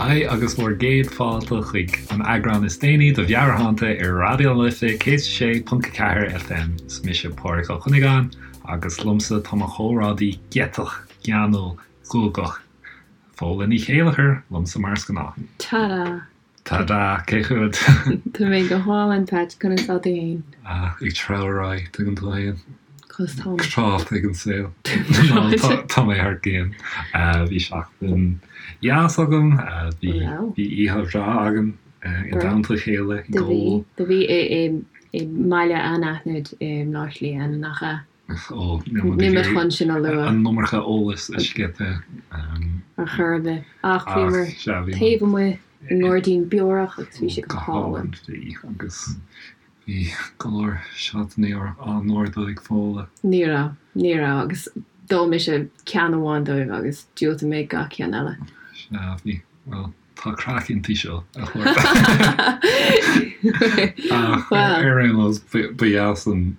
Haigh agus bhur gcéad fáilte chuig an eagrán is déanaí de Mheabhairshláinte ar Raidió na Life 106.4 FM. Is mise Pádraig Ó Cuinneagáin agus liomsa tá mo chomrádaí giotach, geanúil, guagach, Fódhla Ní Chéilleachair, liomsa mar is gnáth. Tada! Tada! Cén chaoi a bhfuil tú? Tá mé go hálainn, Patch, conas tá tú fhéin? Ah, ag treabhadh ar aghaidh, tuigeann tú fhéin. Conas tá mé? Tráth ag an saol. Tá mé thar cionn. Bhí seachtain dheas agam, bhí oíche bhreá againn i dteannta a chéile ag ól. Do bhí i mbaile anaithnid i mBleá Cliath, nach ea? Ó, níl muid chun sin a lua. An iomarca eolais a scaipeadh. Ar chor ar bith. Ach bhíomar taobh amuigh i ngairdín beorach agus bhí sé go hálainn. Bhí, agus bhí go leor seotanna á n-ordú ag Fódhla. Ní raibh, ní raibh, agus d'ól mise ceann amháin dóibh agus diúltaigh mé gach ceann eile. Sea, bhí, bhuel, tá craic inti seo, a chairde. Ach ar aon nós, ba dheas an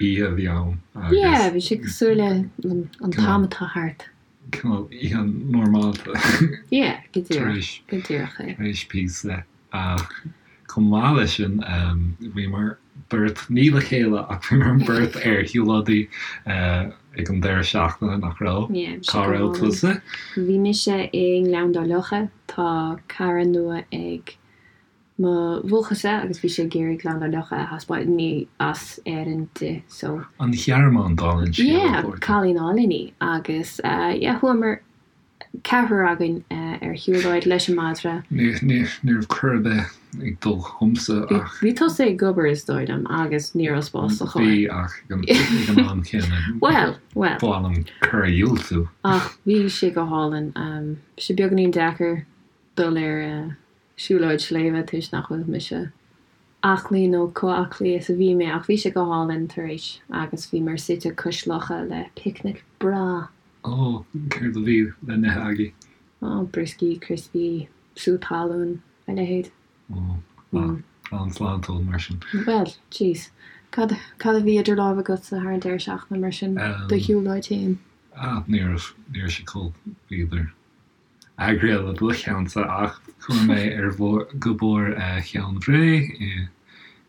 oíche a bhí ann agus. Yeah, bhí sé cosúil le an t-am atá thart. Cineál oíche normálta. Yeah, go díreach, go díreach é. Tar éis píosa ach chomh maith leis sin bhíomar beirt, ní le chéile ach bhíomar beirt ar shiúlóidí ag an deireadh seachtaine, nach raibh? Yeah, Cá raibh tusa? Bhí mise i nGleann Dá Locha, tá cara nua ag mo bhuachaill-sa agus bhí sé ag iarraidh Gleann Dá Locha a thaispeáint, ní as Éirinn di so. An Ghearmáin dála an scéil Yeah, cailín álainn í agus yeah chuamar ceathrar againn ar shiúlóid leis an madra. Ní raibh cor ar bith ag dul chugamsa ach. Bhí tusa ag obair is dóigh liom agus ní raibh spás sa charr. Bhí ach ag an am céanna. Bhuel, bhuel. Ba mhaith liom cor a dhiúltú. Ach bhí sé go hálainn. Bhí sé beagáinín deacair dul ar siúlóid sléibhe toisc nach bhfuil mise aclaí nó chomh aclaí is a bhí mé ach bhí sé go hálainn tar éis agus bhíomar suite cois locha le picnic breá. Ó, céard a bhí le n-ithe agaibh? Ó, brioscaí, criospaí, sú talún, a leithéid. Ó, an-sláintiúil mar sin. Bhuel, jeez. Cad, cad a bhí idir lámha agatsa thar an deireadh seachtaine mar sin, do shiúlóid féin? Ah, ní raibh, ní raibh sé chomh, b'fhéidir. eagraithe le do cheannsa ach chuaigh mé ar go Barr Cheann Bhré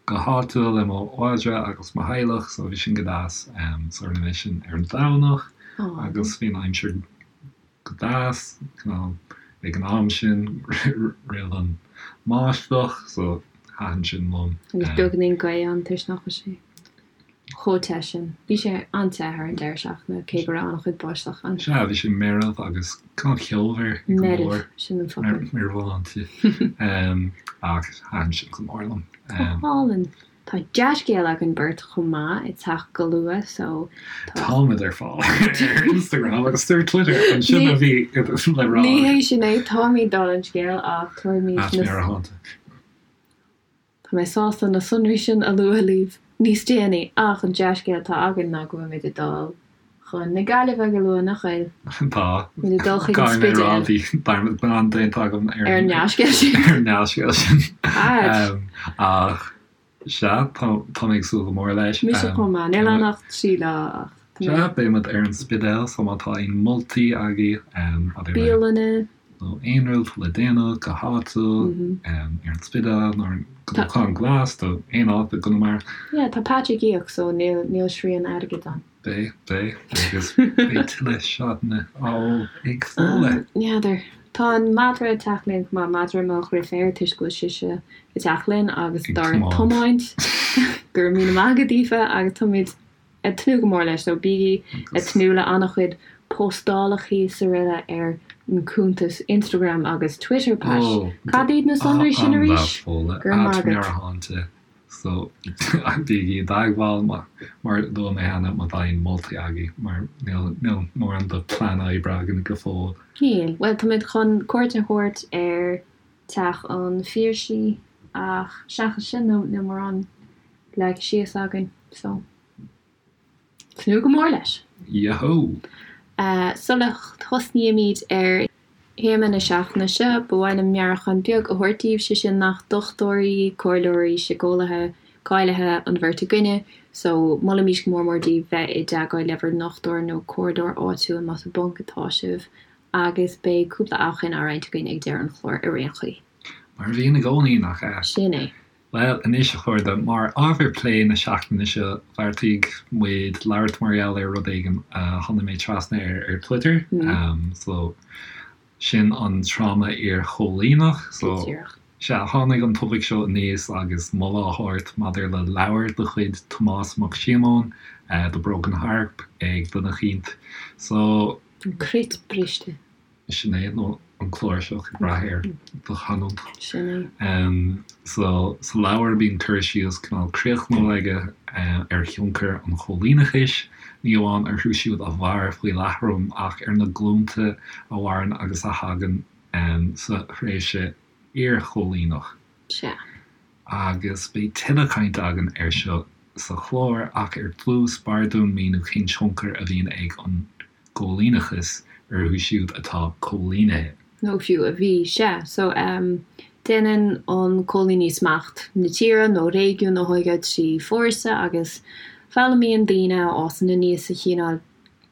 go háitiúil le mo mhadra agus mo theaghlach so bhí sin go deas. So rinne mé sin ar an Domhnach agus bhí an aimsir go deas ag an am sin roimh an mbáisteach so thaitin sin liom. Agus beagáinín gaoth ann toisc nach bhfuil sé chomh te sin. Bhí sé an-te thar an deireadh seachtaine, cé go raibh an-chuid báisteach ann. Sea, bhí sé meirbh agus cineál ceomhar go leor. Meirbh, sin an focal. Meirbheálanta. Ach thaitin sin go mór liom. Go hálainn. Tá dea-scéal againn beirt chomh maith ag teacht go luath so tá. Táimid ar fáil ar Instagram agus ar Twitter, ansin a bhí le rá. Ní hé sin é, táimid dála an scéil ach tabharfaimid na. Meabhairshláinte. Tá mé sásta na sonraí sin a lua libh níos déanaí ach an dea-scéal atá againn ná go bhfuilimid ag dul chun na Gaillimhe go luath, nach bhfuil? Tá. Muid ag dul chuig an Spidéal. Caithfidh mé a rá, bhí dearmad glan déanta agam ar an ndea-scéal sin. Ar an ndea-scéal sin. Ach sea, tá mé ag súil go mór leis. Mise chomh maith. Níl ann ach 3 lá ach tá mé. Sea, beidh muid ar an Spidéal so má tá aon moltaí agaibh maidir le. Bialanna. nó aon rud le déanamh go háitiúil ar an Spidéal nó ar an gCnocán Glas nó aon áit i gConamara. Yeah, tá Patch ag íoc so níl níl srian airgid ann. Beidh, beidh, agus beidh tuilleadh seotanna á ól ag Fódhla. N'fheadar. Tá an madra ag teacht linn chomh maith, madra mo dheirféar toisc go bhfuil sise ag teacht linn agus dár tiomáint. Go raibh míle maith agat Aoife agus táimid ag tnúth go mór leis so bígí ag tnúth le an-chuid postálachaí is araile ar an cuntas Instagram agus Twitter Pat. Cad iad na sonraí sin arís? Go raibh maith agat. So bígí i dteagmháil mar a luaigh mé cheana má tá aon moltaí agaibh mar níl níl mórán de plean oibre againn go fóill. Níl. Bhuel táimid chun cuairt a thabhairt ar Teach an Phiarsaigh ach seachas sin níl mórán leagtha síos againn so tnúth go mór leis! Yahoo! Sula thosnaímid ar théama na seachtaine seo, ba mhaith liom meabhrúchán beag a thabhairt daoibh, sé sin nach dochtúirí, comhairleoirí, síceolaithe cáilithe an bheirt againne, so molaimid go mór mór daoibh bheith i dteagmháil le bhur ndochtúir nó comhairleoir áitiúil más i bponc atá sibh. Agus beidh cúpla amhrán á roinnt againn ag deireadh an chláir ar aon chaoi. Mar a bhíonn i gcónaí, nach ea? Sin é. Bhuel, anois a chairde, mar ábhar plé na seachtaine seo, bheartaigh muid labhairt mar gheall ar rud éigin a tháinig mé trasna air ar Twitter. So, sin an tráma iar-chóilíneach. So, Díreach. sea, tháinig an topaic seo aníos agus moladh á thabhairt maidir le leabhar de chuid Tomás Mac Síomóin, The Broken Harp, ag duine eicínt. So. An Cruit Briste. Sin é, nó an cláirseach, ag brath ar do chanúint. Sin é. So, sa leabhar bíonn cur síos cineál críochnúil aige ar thionchar an choilíneachais, ní amháin orthu siúd a mhair faoi leatrom ach ar na glúnta a mhaireann agus a thagann sa thréimhse iarchoilíneach. Sea. Agus beidh tuilleadh cainte againn air seo sa chlár, ach ar dtús, b'fhearr dúinn míniú cén tionchar a bhíonn ag an gcoilíneachas orthu siúd atá coilínithe. Nó fiú a bhí. Sea. So, em, déanann an coilíní smacht na tíre nó réigiún a thógáil trí fórsa agus foghlaimíonn daoine a fhásann aníos sa chineál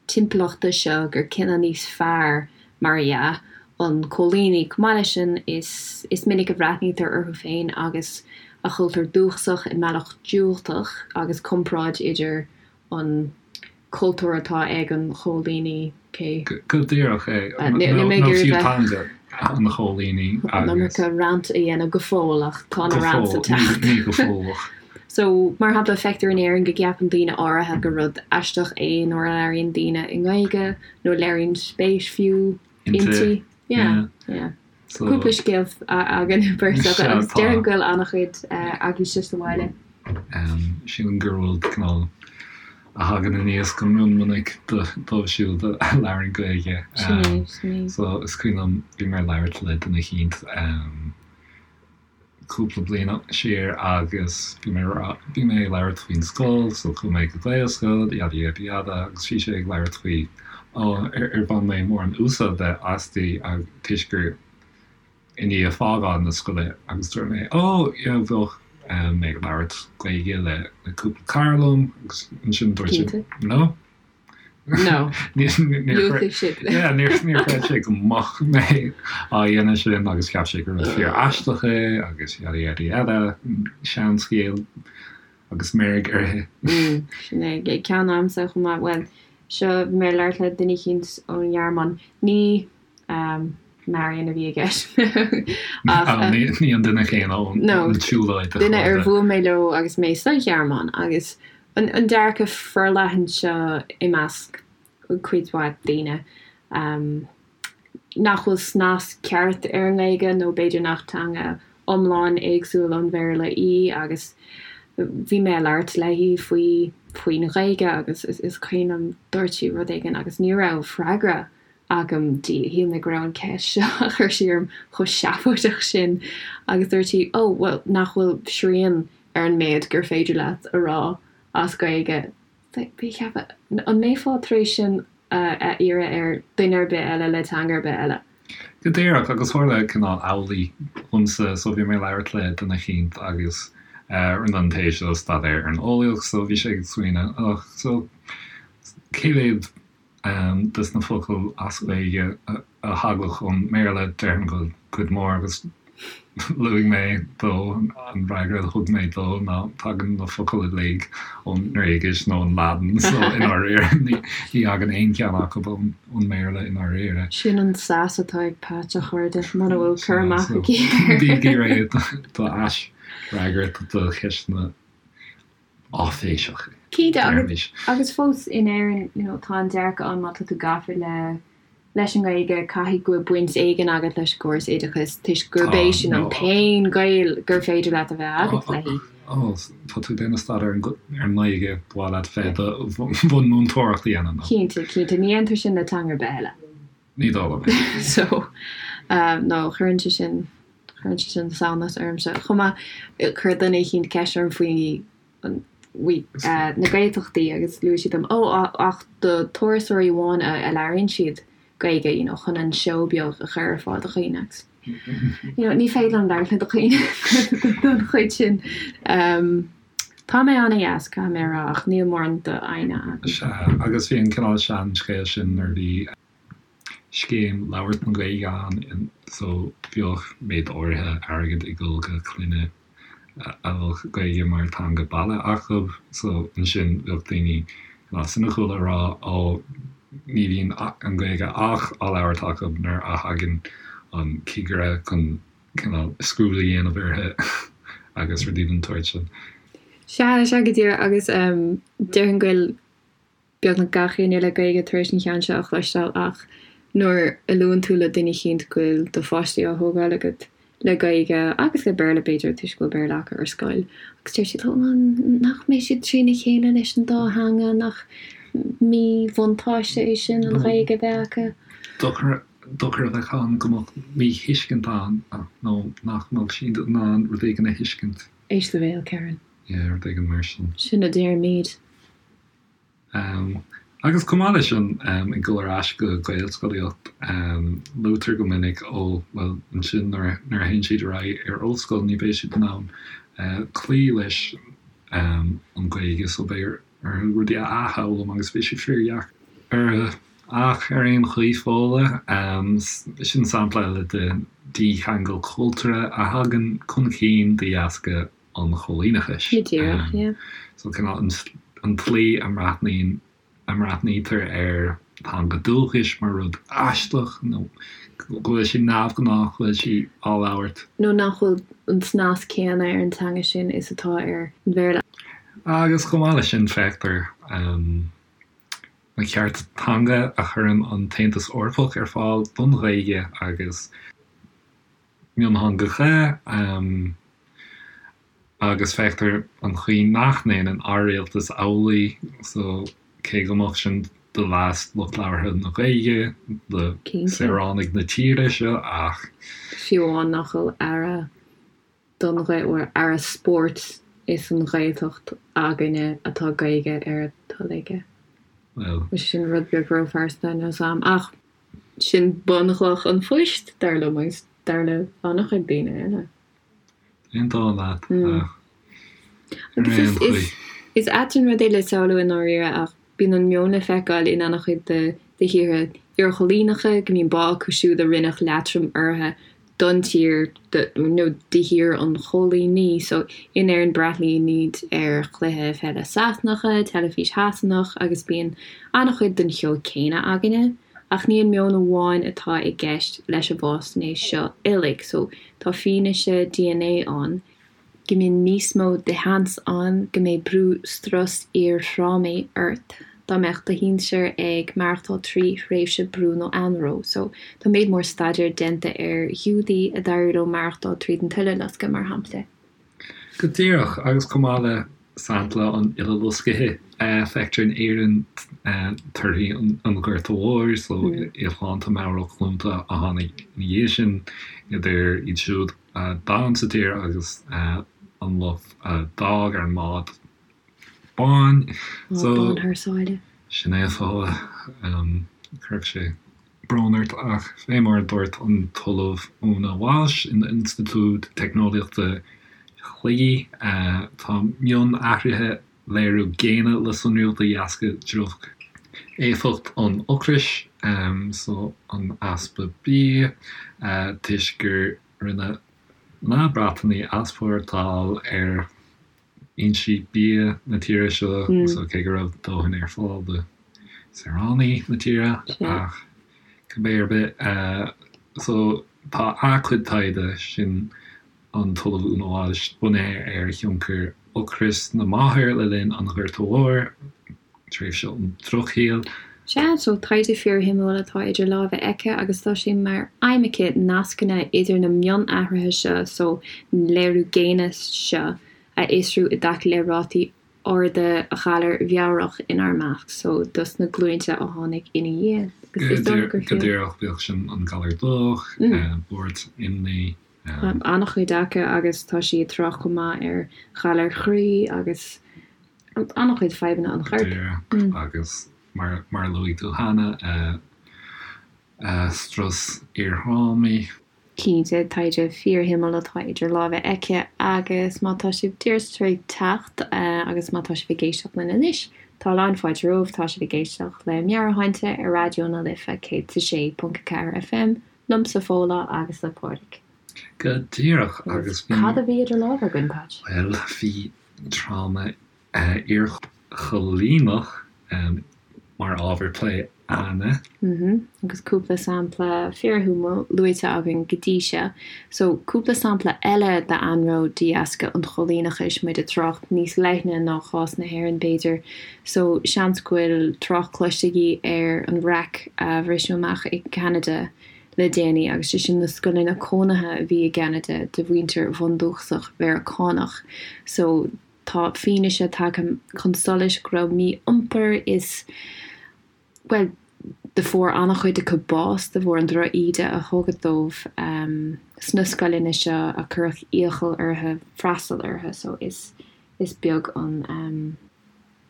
timpeallachta seo gur cine níos fearr, mar dhea, an coilíní. Chomh maith leis sin, is is minic a bhreathnaítear orthu féin agus a chultúr dúchasach i mbealach diúltach agus comparáid idir an cultúr atá ag an choilíní, cé. Go díreach é. Nó fiú teanga an choilíní agus. An iomarca rant a dhéanamh go fóill ach tá na rants ag teacht. Ní go fóill ach. So, mar shampla, feictear in Éirinn go gceapann daoine áirithe gur rud aisteach é nuair a labhraíonn daoine i nGaeilge nó léiríonn spéis fiú inti. Yeah, yeah. Cúpla scéal againn beirt agus déarfainn go bhfuil an-chuid agaibhse sa bhaile. Sílim gur rud cineál a thagann aníos go mion minic dóibh siúd a labhrann Gaeilge. Sin é, sin é. So is cuimhin liom, bhí mé ag labhairt le duine eicínt cúpla bliain siar agus bhí mé bhí mé ag labhairt faoin scoil, so chuaigh mé go Gaelscoil, yada yada yada agus bhí sé ag labhairt faoi ó ar ar bhain mé mórán úsáide aisti toisc gur i ndiaidh fágáil na scoile agus dúirt mé ó yeah bheadh mé ag labhairt Gaeilge le le cúpla cara liom agus ansin dúirt sé no. No. Níor chreid sé go mbeadh mé á dhéanamh sin agus cheap sé gur rud fíor aisteach é agus yada yada yada, seanscéal agus meirg uirthi. Sin é, ceann agamsa chomh maith, bhuel, seo, bhí mé ag labhairt le duine eicínt ón nGearmáin, ní Marion a bhí i gceist ach. Ní an duine céanna ón tsiúlóid a chairde. Duine ar bhuail mé leo agus mé sa Ghearmáin agus an dearcadh forleathan seo i measc cuid mhaith daoine nach bhfuil snas ceart ar an nGaeilge nó b'fhéidir nach teanga iomlán éagsúil ón Bhéarla í agus bhí mé ag labhairt léi faoi faoin Ghaeilge agus is cuimhin liom dúirt sí rud éigin agus ní raibh freagra agam di. Shíl mé go raibh an ceist seo a chuir sí orm chomh seafóideach sin agus dúirt sí, oh, bhuel, nach bhfuil srian ar an méid gur féidir leat a rá as Gaeilge. Bhí ag ceapadh, an mbeifeá tar éis sin a iarraidh ar dhuine ar bith eile le teanga ar bith eile? Go díreach, agus tharla cineál amhlaidh dhomsa, so bhí mé ag labhairt le duine eicínt agus rinne an té seo staidéar ar an eolaíocht, so bhí sé ag smaoineamh, oh, so cé mhéad des na focail as Gaeilge a thagadh ón mBéarla, déarfainn go bhfuil cuid mhór agus luaigh mé dó, an fhreagra a thug mé dó ná tagann na focail uilig ón nGréigis nó an Laidin so i ndáiríre ní thagann aon cheann acu ón mBéarla i ndáiríre. Sin an sass atá ag Pat, a chairde, muna bhfuil cur amach aici air. Bígí réidh do aisfhreagairt do cheisteanna áiféiseach, Cinnte, agus agus fós in Éirinn, you know, tá an dearcadh ann má tá tú gafa le leis an nGaeilge, caithfidh go bhfuil baint éigin agat leis an gcóras oideachais toisc gurb é sin an t-aon ghaol gur féidir leat a bheith agat léi. Ó, tá tú ag déanamh staidéar ar an nGaeilge, ba mhaith leat bheith i do bhun múinteoireacht a dhéanamh, nó? Cinnte, cinnte, ní dhéantar sin le teanga ar bith eile. Ní dóigh liom é. So, no, cuireann sé sin, cuireann sé sin samhnas ormsa. Chomh maith, chuir duine eicínt ceist orm faoi, faoi na Gaeltachtaí agus luaigh siad dom, oh, ach do turasóirí amháin a labhraíonn siad Gaeilge, you know, chun an seó beag a chur ar fáil do dhaoine agus, you know, ní féidir liom labhairt le dhaoine don chuid sin. Tá mé an-dheas, caithfidh mé a rá, ach níl mórán d'fhoighne agam. Sea, agus bhí an cineál seanscéal sin nuair a bhí. Scéim Labhairt na Gaeilge ann so bheadh méid áirithe airgid ag dul go clainne a bheadh Gaeilge mar teanga baile acu so ansin bheadh daoine cineál soiniciúil ag rá ó ní bhíonn an Ghaeilge ach á labhairt acu nuair a thagann an cigire chun cineál scrúdú a dhéanamh orthu agus rudaí den tsórt sin. Sea, sea go díreach agus déarfainn go bhfuil beagnach gach éinne le Gaeilge tar éis an cheann seo a chloisteáil ach nuair a luann tú le duine eicínt go bhfuil do pháistí á thógáil agat le Gaeilge agus le Béarla b'fhéidir toisc go bhfuil Béarla acu ar scoil agus deir siad ó nach mbeidh siad trína chéile leis an dá theanga, nach míbhuntáiste é sin an Ghaeilge a bheith acu? Dochar dochar a bheadh ann go mbeadh míthuiscint ann nó nach mbeadh siad in ann rud éigin a thuiscint. Éist do bhéal, Karen. Yeah, rud éigin mar sin. Sin a deirimid. Agus chomh maith leis sin, ag dul ar ais go Gaelscolaíocht, luaitear go minic, ó, bhuel, ansin nuair a théann siad ar aghaidh ar ollscoil ní bheidh siad in ann cloí leis an Ghaeilge so beidh orthu rudaí a athfhoghlaim agus beidh sé fíordheacair orthu. Ach ar aon chaoi, Fódhla, sin sampla eile de dhícheangal cultúrtha a thagann chun cinn de dheasca an choilíneachais. Go díreach, yeah. So cineál an tslí a mbreathnaíonn, a mbreathnaítear ar theanga dúchais mar rud aisteach nó go bhfuil sé neamhghnách go bhfuil sí á labhairt. Nó nach bhfuil an snas céanna ar an teanga sin is atá ar an Bhéarla. Agus chomh maith leis sin feictear na cearta teanga a chuireann an tAontas Eorpach ar fáil don Ghaeilge agus miontheangacha agus feictear an chaoi nach ndéanann ár rialtas amhlaidh so cé go mbeadh sin do leas lucht labhartha na Gaeilge, do saoránaigh na tíre seo ach. Fiú amháin nach bhfuil aire don Ghaeilge, aire spóirt is an Ghaeltacht againne atá Gaeilge ar a toil aige. Bhuel. Sin rud beag róphearsanta níl 's a'm ach. Sin bunchloch an phoist, dar liom, agus dar le an-chuid daoine eile. Aontaím leat, ach ar aon chaoi. Is ait an rud é le samhlú i ndáiríre, ach bíonn an meon le feiceáil in an-chuid de thíortha iarchoilíneacha, go mbíonn bá acu siúd a rinneadh leatrom orthu don tír nó do thír an choilíní. So, in Éirinn breathnaímid ar chluiche peile Sasanacha, teilifís Shasanach agus bíonn an-chuid den cheo céanna againne. Ach ní an meon amháin atá i gceist leis an bhfaisnéis seo uilig. So, tá fianaise DNA ann. go mbíonn níos mó de sheans ann go mbeidh brú strus iarthrámaigh ort dá mbeadh do shinsir ag maireachtáil trí thréimhse brú nó anró. So, tá méid mór staidéir déanta ar Ghiúdaigh a d'éirigh leo maireachtáil tríd an tUileloscadh, mar shampla. Go díreach, agus chomh maith le sampla an Uileloscaithe, feictear in Éirinn torthaí an Ghorta Mhóir, so íocshláinte meabhrach glúnta a tháinig ina dhiaidh sin, idir iad siúd a d'fhan sa tír agus an lucht a d'fhág ar an mbád bán. Bád bán thar sáile. Sin é a Fódhla. Chuirfeadh sé brón ort ach fé mar a dúirt an tOllamh Úna Walsh in Institiúid Teicneolaíochta Shligigh, tá mionathruithe léiriú géine le sonrú de dheasca droch-éifeacht an ocrais, so an easpa bia, toisc gur rinne na Breatanaigh easpórtáil ar fhoinsí bia na tíre seo, so cé go raibh dóthain ar fáil do saoránaigh na tíre, ach cibé ar bith, so tá a cuid taighde sin. an tOllamh Úna Walsh, bunaithe ar thionchar ocrais na máthar le linn an Ghorta Mhóir, tréimhse an Drochshaoil. Sea, so taighde fíorshuimiúil atá idir lámha aici agus tá sé mar aidhm aici nascanna idir na mionathruithe seo, so na léiriú géine seo, a fhiosrú i dtaca le rátaí arda ghalair mheabhrach inár measc, so dos na glúinte a tháinig ina dhiaidh. Agus is dócha gur Go díreach, bíodh sin an galar dubhach, buairt, imní. an-chuid acu agus tá sí ag trácht chomh maith ar ghalair chroí agus an-chuid fadhbanna an choirp. Díreach, agus mar a luaigh tú cheana, strus iarthrámaí. Cinnte, taighde fíorshuimiúil atá idir lámha aici agus má tá sibh díreach tar éis teacht agus má tá sibh ag éisteacht linn anois, Tá a lán fáilte romhaibh, tá sibh ag éisteacht le Meabhairshláinte ar Raidió na Life 106.4 FM, liomsa Fódhla agus le Pádraig. Go díreach, agus bhí. Cad a bhí idir lámha againn, Patch? Bhuel, bhí tráma iarchoilíneach mar ábhar plé a'inne. Agus cúpla sampla fíorshuimiúil luaite againn go dtí seo. So, cúpla sampla eile d'anró de dheasca an choilíneachais, muid ag trácht níos leithne ná cás na hÉireann b'fhéidir. So, seans go bhfuil trácht cloiste agaibh ar an raic a bhriseadh amach i gCeanada le déanaí, agus sé sin na scoileanna cónaithe a bhí i gCeanada do mhuintir bhundúchasach Mheiriceánach. So, Tá fianaise tagtha chun solais go raibh mí-iompar is, bhuel, do fuair an-chuid acu bás de bharr an droch-íde a tugadh dóibh sna scoileanna seo a cuireadh iachall orthu freastal orthu. So is, is beag an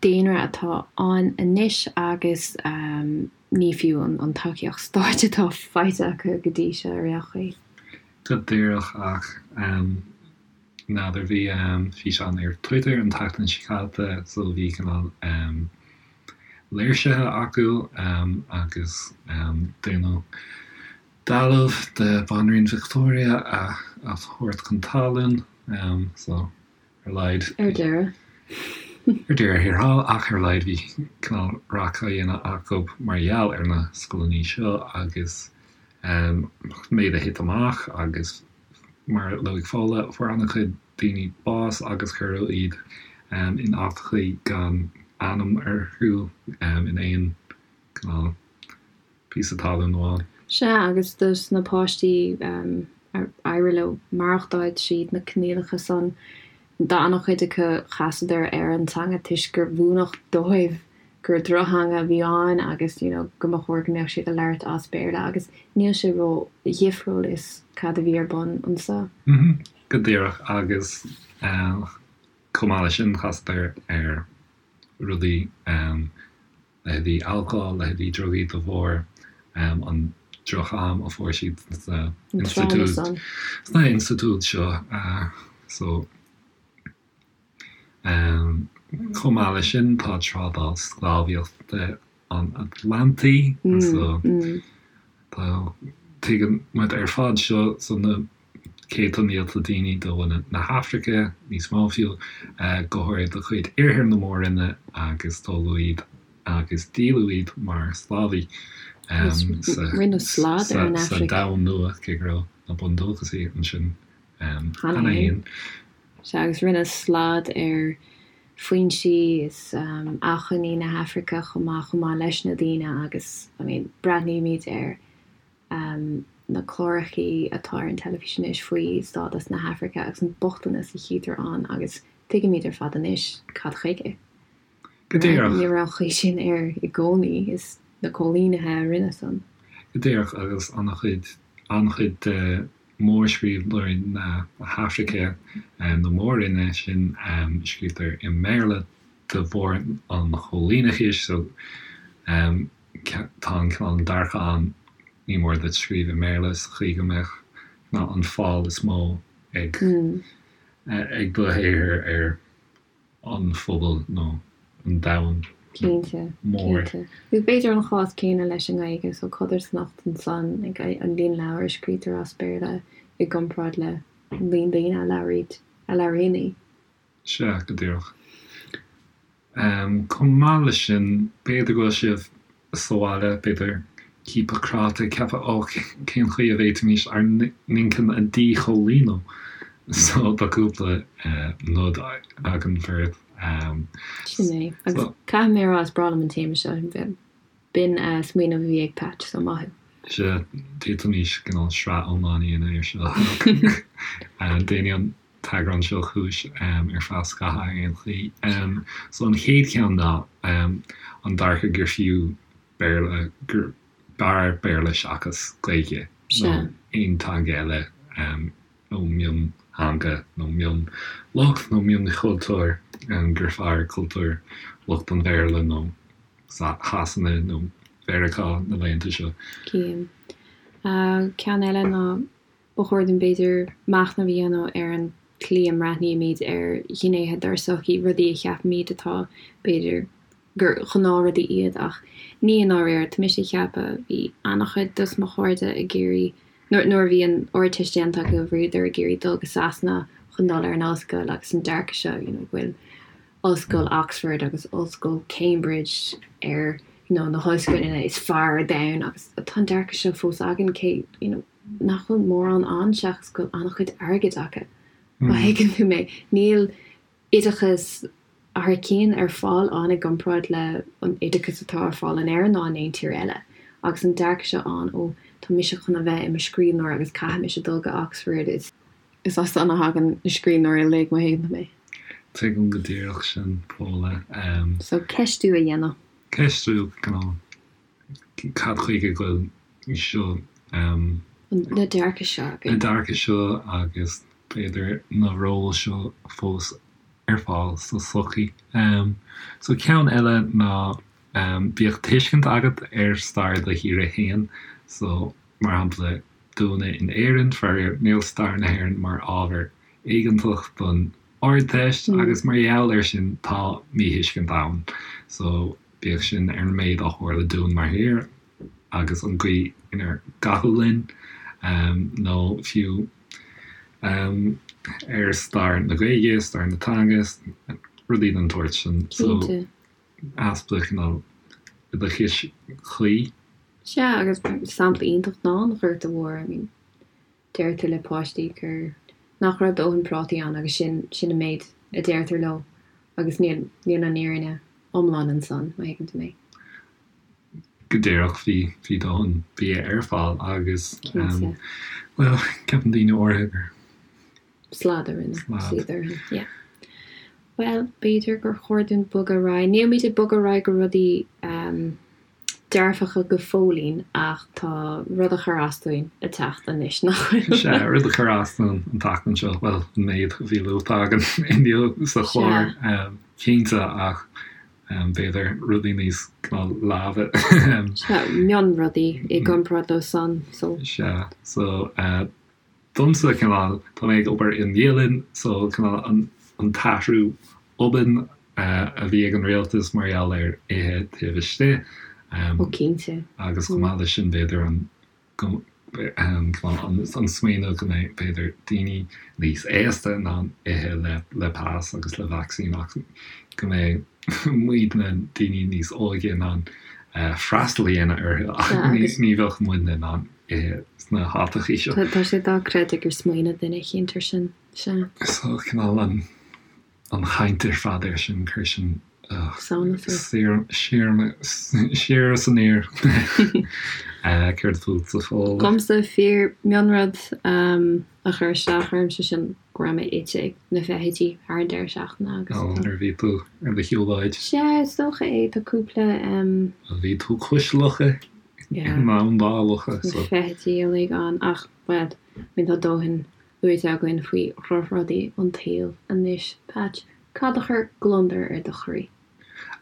daonra atá ann anois agus ní fiú an tacaíocht stáit atá faighte acu go dtí seo ar aon chaoi. Go díreach ach. N'fheadar, bhí físeán ar Twitter an tseachtain seo caite so bhí cineál léirsithe acu agus déanamh dealbh de Bhanríon Victoria a thabhairt chun talún so ar a laghad. Ar deireadh. Ar deireadh thiar thall ach ar a laghad bhí cineál raic á dhéanamh acu mar gheall ar na scoileanna seo agus méid a thit amach agus Mar a luaigh Fódhla, fuair an-chuid daoine bás agus cuireadh iad in áiteachaí gan ainm orthu in aon cineál píosa talún amháin. Sea, agus dos na páistí ar éirigh leo maireachtáil tríd na coinníollacha san, d'an-chuid acu chasadar ar an teanga toisc gur mhúineadh dóibh gur drochtheanga a bhí ann agus you know go mba chóir go mbeadh siad ag labhairt as Béarla agus níl sé ró dhifriúil is cad a bhí ar bun anso. Go díreach agus chomh maith leis sin chasadar ar rudaí leithéidí alcóil, leithéidí drugaí de bharr an droch-am a fuair siad sna institiúid sna institiúid seo so. Chomh maith leis sin, tá trádáil sclábhaíochta an Atlantaigh so tá, tuigeann muid ar fad seo, so na céadta mílte daoine de bhunadh na hAfraice, níos mó fiú, go háirithe de chuid Iarthar na Mór-Roinne agus tógadh iad agus díoladh iad mar sclábhaí sa Domhan Nua, cé go raibh na bundúchasaigh ansin cheana féin. Sea, agus rinneadh slad ar foinsí is acmhainní na hAfraice chomh maith, chomh maith leis na daoine agus, I mean, breathnaímid ar na clárachaí atá ar an teilifís anois faoi stádas na hAfraice agus an bochtanas a chítear ann agus tuigimid ar fad anois cad chuige. Go díreach. Ní raibh an chaoi sin air i gcónaí, is na coilínithe a rinne san. Go díreach, agus an-chuid, an-chuid de mhórscríbhneoirí na hAfraice, na mór-roinne sin, scríobhtar i mBéarla de bharr an choilíneachais, so tá an cineál dearcadh ann, ní mór duit scríobh i mBéarla sa chaoi go mbeadh an fáil is mó ag ag do shaothar ar an phobal nó an domhan Cinnte, mór. cinnte. Agus b'fhéidir an chás céanna leis an nGaeilge, so codarsnacht ansan, like, an líon leabhar a scrítear as Béarla i gcomparáid le an líon daoine a labhraíd, a labhraíonn í. Sea, go díreach. Chomh maith leis sin, b'fhéidir go bhfuil sibh sa bhaile, b'fhéidir, ciapadh cráite, ag ceapadh, ó, cén chaoi a bhféadfaimis ár n-inchinn a dhíchoilíniú? So, tá cúpla nod againn beirt. Sin é. Agus caithfidh mé a rá, is breá liom an téama seo. B'in smaoineamh a bhí ag Patch, so maith thú. Sea, d'fhéadfaimis cineál sraith iomlán a dhéanamh air seo. Déanfaidh an t-eagrán seo cúis ar feadh scaithimh ar aon chaoi. So an chéad cheann ná an dearcadh gur fiú Béarla, gur b'fhearr Béarla seachas Gaeilge nó aon teanga eile nó miontheanga nó mionlucht nó mionchultúr, gur fearr cultúr lucht an Bhéarla nó Shasana nó Mheiriceá na laethanta seo. Cím. Ceann eile ná Ba chóir dúinn, b'fhéidir, machnamh a dhéanamh ar an tslí a mbreathnaímid ar ghnéithe dár sochaí, rudaí a cheapaimid atá, b'fhéidir, gur ghnáthrudaí iad ach ní i ndáiríre. Tá mise ag ceapadh, bhí an-chuid dos mo chairde ag iarraidh, nuair nuair a bhí an Ardteist déanta acu, bhíodar ag iarraidh dul go Sasana chun dul ar an ollscoil agus an dearcadh seo, you know, go bhfuil Ollscoil Oxford agus Ollscoil Cambridge ar, you know, na hollscoileanna is fearr ar domhan agus tá an dearcadh seo fós againn cé, you know, nach bhfuil mórán ann seachas go bhfuil an-chuid airgid acu. Má thuigeann tú mé, níl oideachas thar cionn ar fáil ann i gcomparáid le an oideachas atá ar fáil in Éirinn ná in aon tír eile. Agus an dearcadh seo ann, ó, tá mise chun a bheith i mo scríbhneoir agus caithfidh mise dul go Oxford, is is as san a thagann na scríbhneoirí uilig, má thuigeann tú mé. Tuigim go díreach sin, Paula. So, ceistiú a dhéanamh. Ceistiú, cineál, cad chuige go bhfuil seo. Na dearcaidh seo againn. Na dearcaidh seo agus b'fhéidir na róil seo fós ar fáil sa tsochaí. So ceann eile ná bíodh tuiscint agat ar stair do thíre fhéin. So mar shampla dúinne in Éirinn, faraor níl stair na hÉireann mar ábhar éigeantach don Ardteist agus mar gheall air sin tá míthuiscint ann. So bíodh sin ar an méid a tharla dúinn mar thír agus an gcaoi inar caitheadh linn, nó fiú ar stair na Gaeilge, stair na teanga, rudaí den tsórt sin. So, easpa cineál oideachais chuí. Sea, agus sampla iontach ná an Ghorta Mhór. I mean, deirtear le páistí gur, nach raibh dóthain prátaí ann agus sin, sin an méid a deirtear leo agus níl, níl an fhírinne iomlán ansan, má thuigeann tú mé. Go díreach, bhí, bhí dóthain bia ar fáil agus, Cinnte. bhuel, ceapann daoine áirithe gur. Slad a rinne siad orthu, yeah. Bhuel, b'fhéidir gur chóir dúinn bogadh ar aghaidh. Nílimid ag bogadh ar aghaidh go rudaí dearfacha go fóillín ach tá rud a chuir as dúinn ag teacht anois, nach bhfuil? Sea, rud a chuir as dúinn an tseachtain seo, bhuel, an méid a bhí luaite againn inniu sa chlár, cinnte, ach b'fhéidir rudaí níos leamha. Sea, mionrudaí i gcomparáid leo san, so. Sea, so, Domsa, cineál, tá mé ag obair i mbialann so cineál an t-athrú obann a bhí ag an rialtas mar gheall ar ithe taobh istigh. Ó cinnte. Agus chomh maith leis sin b'fhéidir an cineál an smaoineamh go mbeidh b'fhéidir daoine níos aosta in ann ithe le le pas agus le vacsaín ach go mbeidh muidne daoine níos óige in ann freastal a dhéanamh orthu ach ní bheadh muidne in ann ithe sna háiteachaí seo. Tá sé dochreidte gur smaoinigh duine eicínt ar sin. Sea. So, cineál an, an chaint ar fad air sin, chuir sin, ugh, Sánas ort. siar, siar, siar is aniar. Céard fútsa, Fódhla? Dhomsa, fíor mionrud a chuir isteach ormsa sin go raibh mé ite ag na feithidí thar an deireadh seachtaine agus Ó, tá. nuair a bhí tú ar do shiúlóid. Sea, is dócha é, tá cúpla. Bhí tú cois locha. Yeah. I mbun locha, so. Na feithidí uilig ann ach, bhuel, I mean tá dóthain luaite againn faoi dhrochrudaí an tsaoil anois. Patch, cad a chuir gliondar ar do chroí?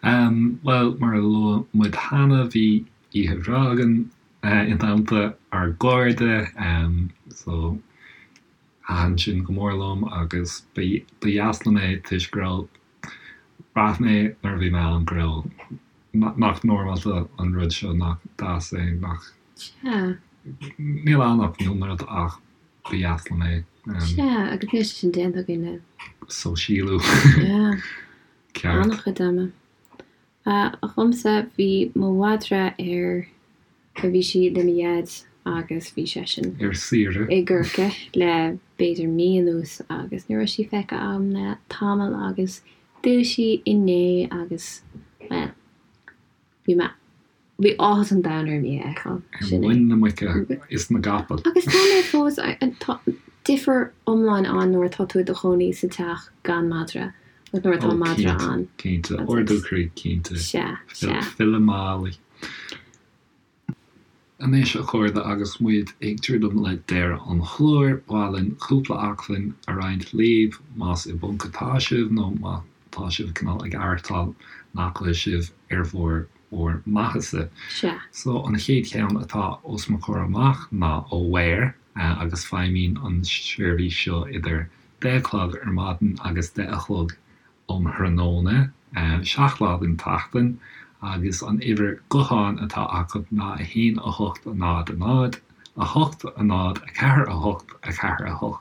Em, bhuel, mar a luaigh muid cheana, bhí oíche bhreá againn i dteannta ár gcairde, em, so thaitin sin go mór liom agus ba dheas liom é toisc go raibh Bhraith mé nuair a bhí mé ann go raibh, nach normálta an rud seo, nach deas é, nach. Sea. Níl ann ach mionrud ach ba dheas liom é. Sea, agus níl sé sin déanta againn le. Sóisialú. Yeah. Ceart. An-chuid ama. Dhomsa, bhí mo mhadra ar. Bhí sí le mo dhaid agus bhí seisean. Ar saoire. I gCorcaigh le b'fhéidir mí anuas agus ní raibh sí feicthe agam le tamall agus d'fhill sí inné agus, bhuel, bhí mé, bhí áthas an domhain orm í a fheiceáil. Ar Sin é. muin na muice is na gcapall. Agus tá mé fós, tá difear iomlán ann nuair atá tú i do chónaí sa teach gan madra agus nuair atá Ó, madra cinnte, ann. cinnte. Ardú croí, cinnte. Sea, sea. Filleadh Molly. Anois, a chairde, agus muid ag druidim le deireadh an chláir, ba mhaith linn cúpla acmhainn a roinnt libh, más i bponc atá sibh nó má tá sibh cineál ag aireachtáil nach bhfuil sibh ar bharr bhur maitheasa. Sea. So, an chéad cheann atá os mo chomhair amach ná Aware, agus feidhmíonn an seirbhís seo idir deich a chlog ar maidin agus deich a chlog um thráthnóna. 7 lá den tseachtain agus an uimhir gutháin atá acu ná 1 8 0 0 8 0 4 8 4 8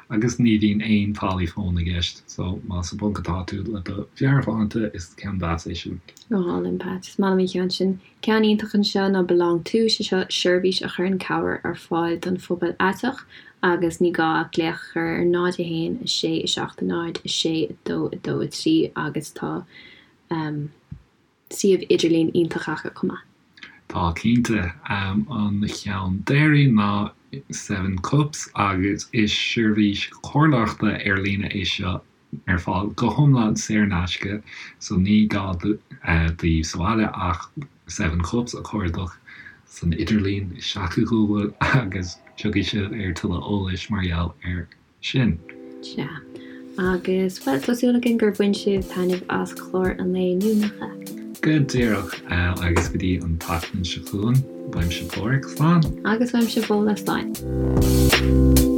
agus ní bhíonn aon táillí fóin i gceist so más i bponc atá tú le do mheabhairshláinte is ceann deas é sin. Go hálainn, Pat. Is maith liom an ceann sin. Ceann iontach anseo ná Belong To, sé seo seirbhís a chuireann cabhair ar fáil don phobal aiteach agus ní gá ach glaoch a chur ar 0 1 6 7 0 6 2 2 3 agus tá suíomh idirlín iontach acu chomh maith. Tá cinnte. An cheann deiridh ná Seven Cups agus is seirbhís comhairleoireachta ar líne é seo ar fáil go hiomlán saor in aisce so ní gá daoibh sa bhaile ach Seven Cups a chuardach san idirlíon isteach i Google agus tiocfaidh sibh ar tuilleadh eolais mar gheall air sin. Sea. Agus, bhuel, tá súil againn gur bhain sibh taitneamh as clár an lae inniu, nach ea? Go díreach. Agus go dtí an tseachtain seo chugainn, uaimse Páraic, slán! Agus uaimse Fódhla, slán!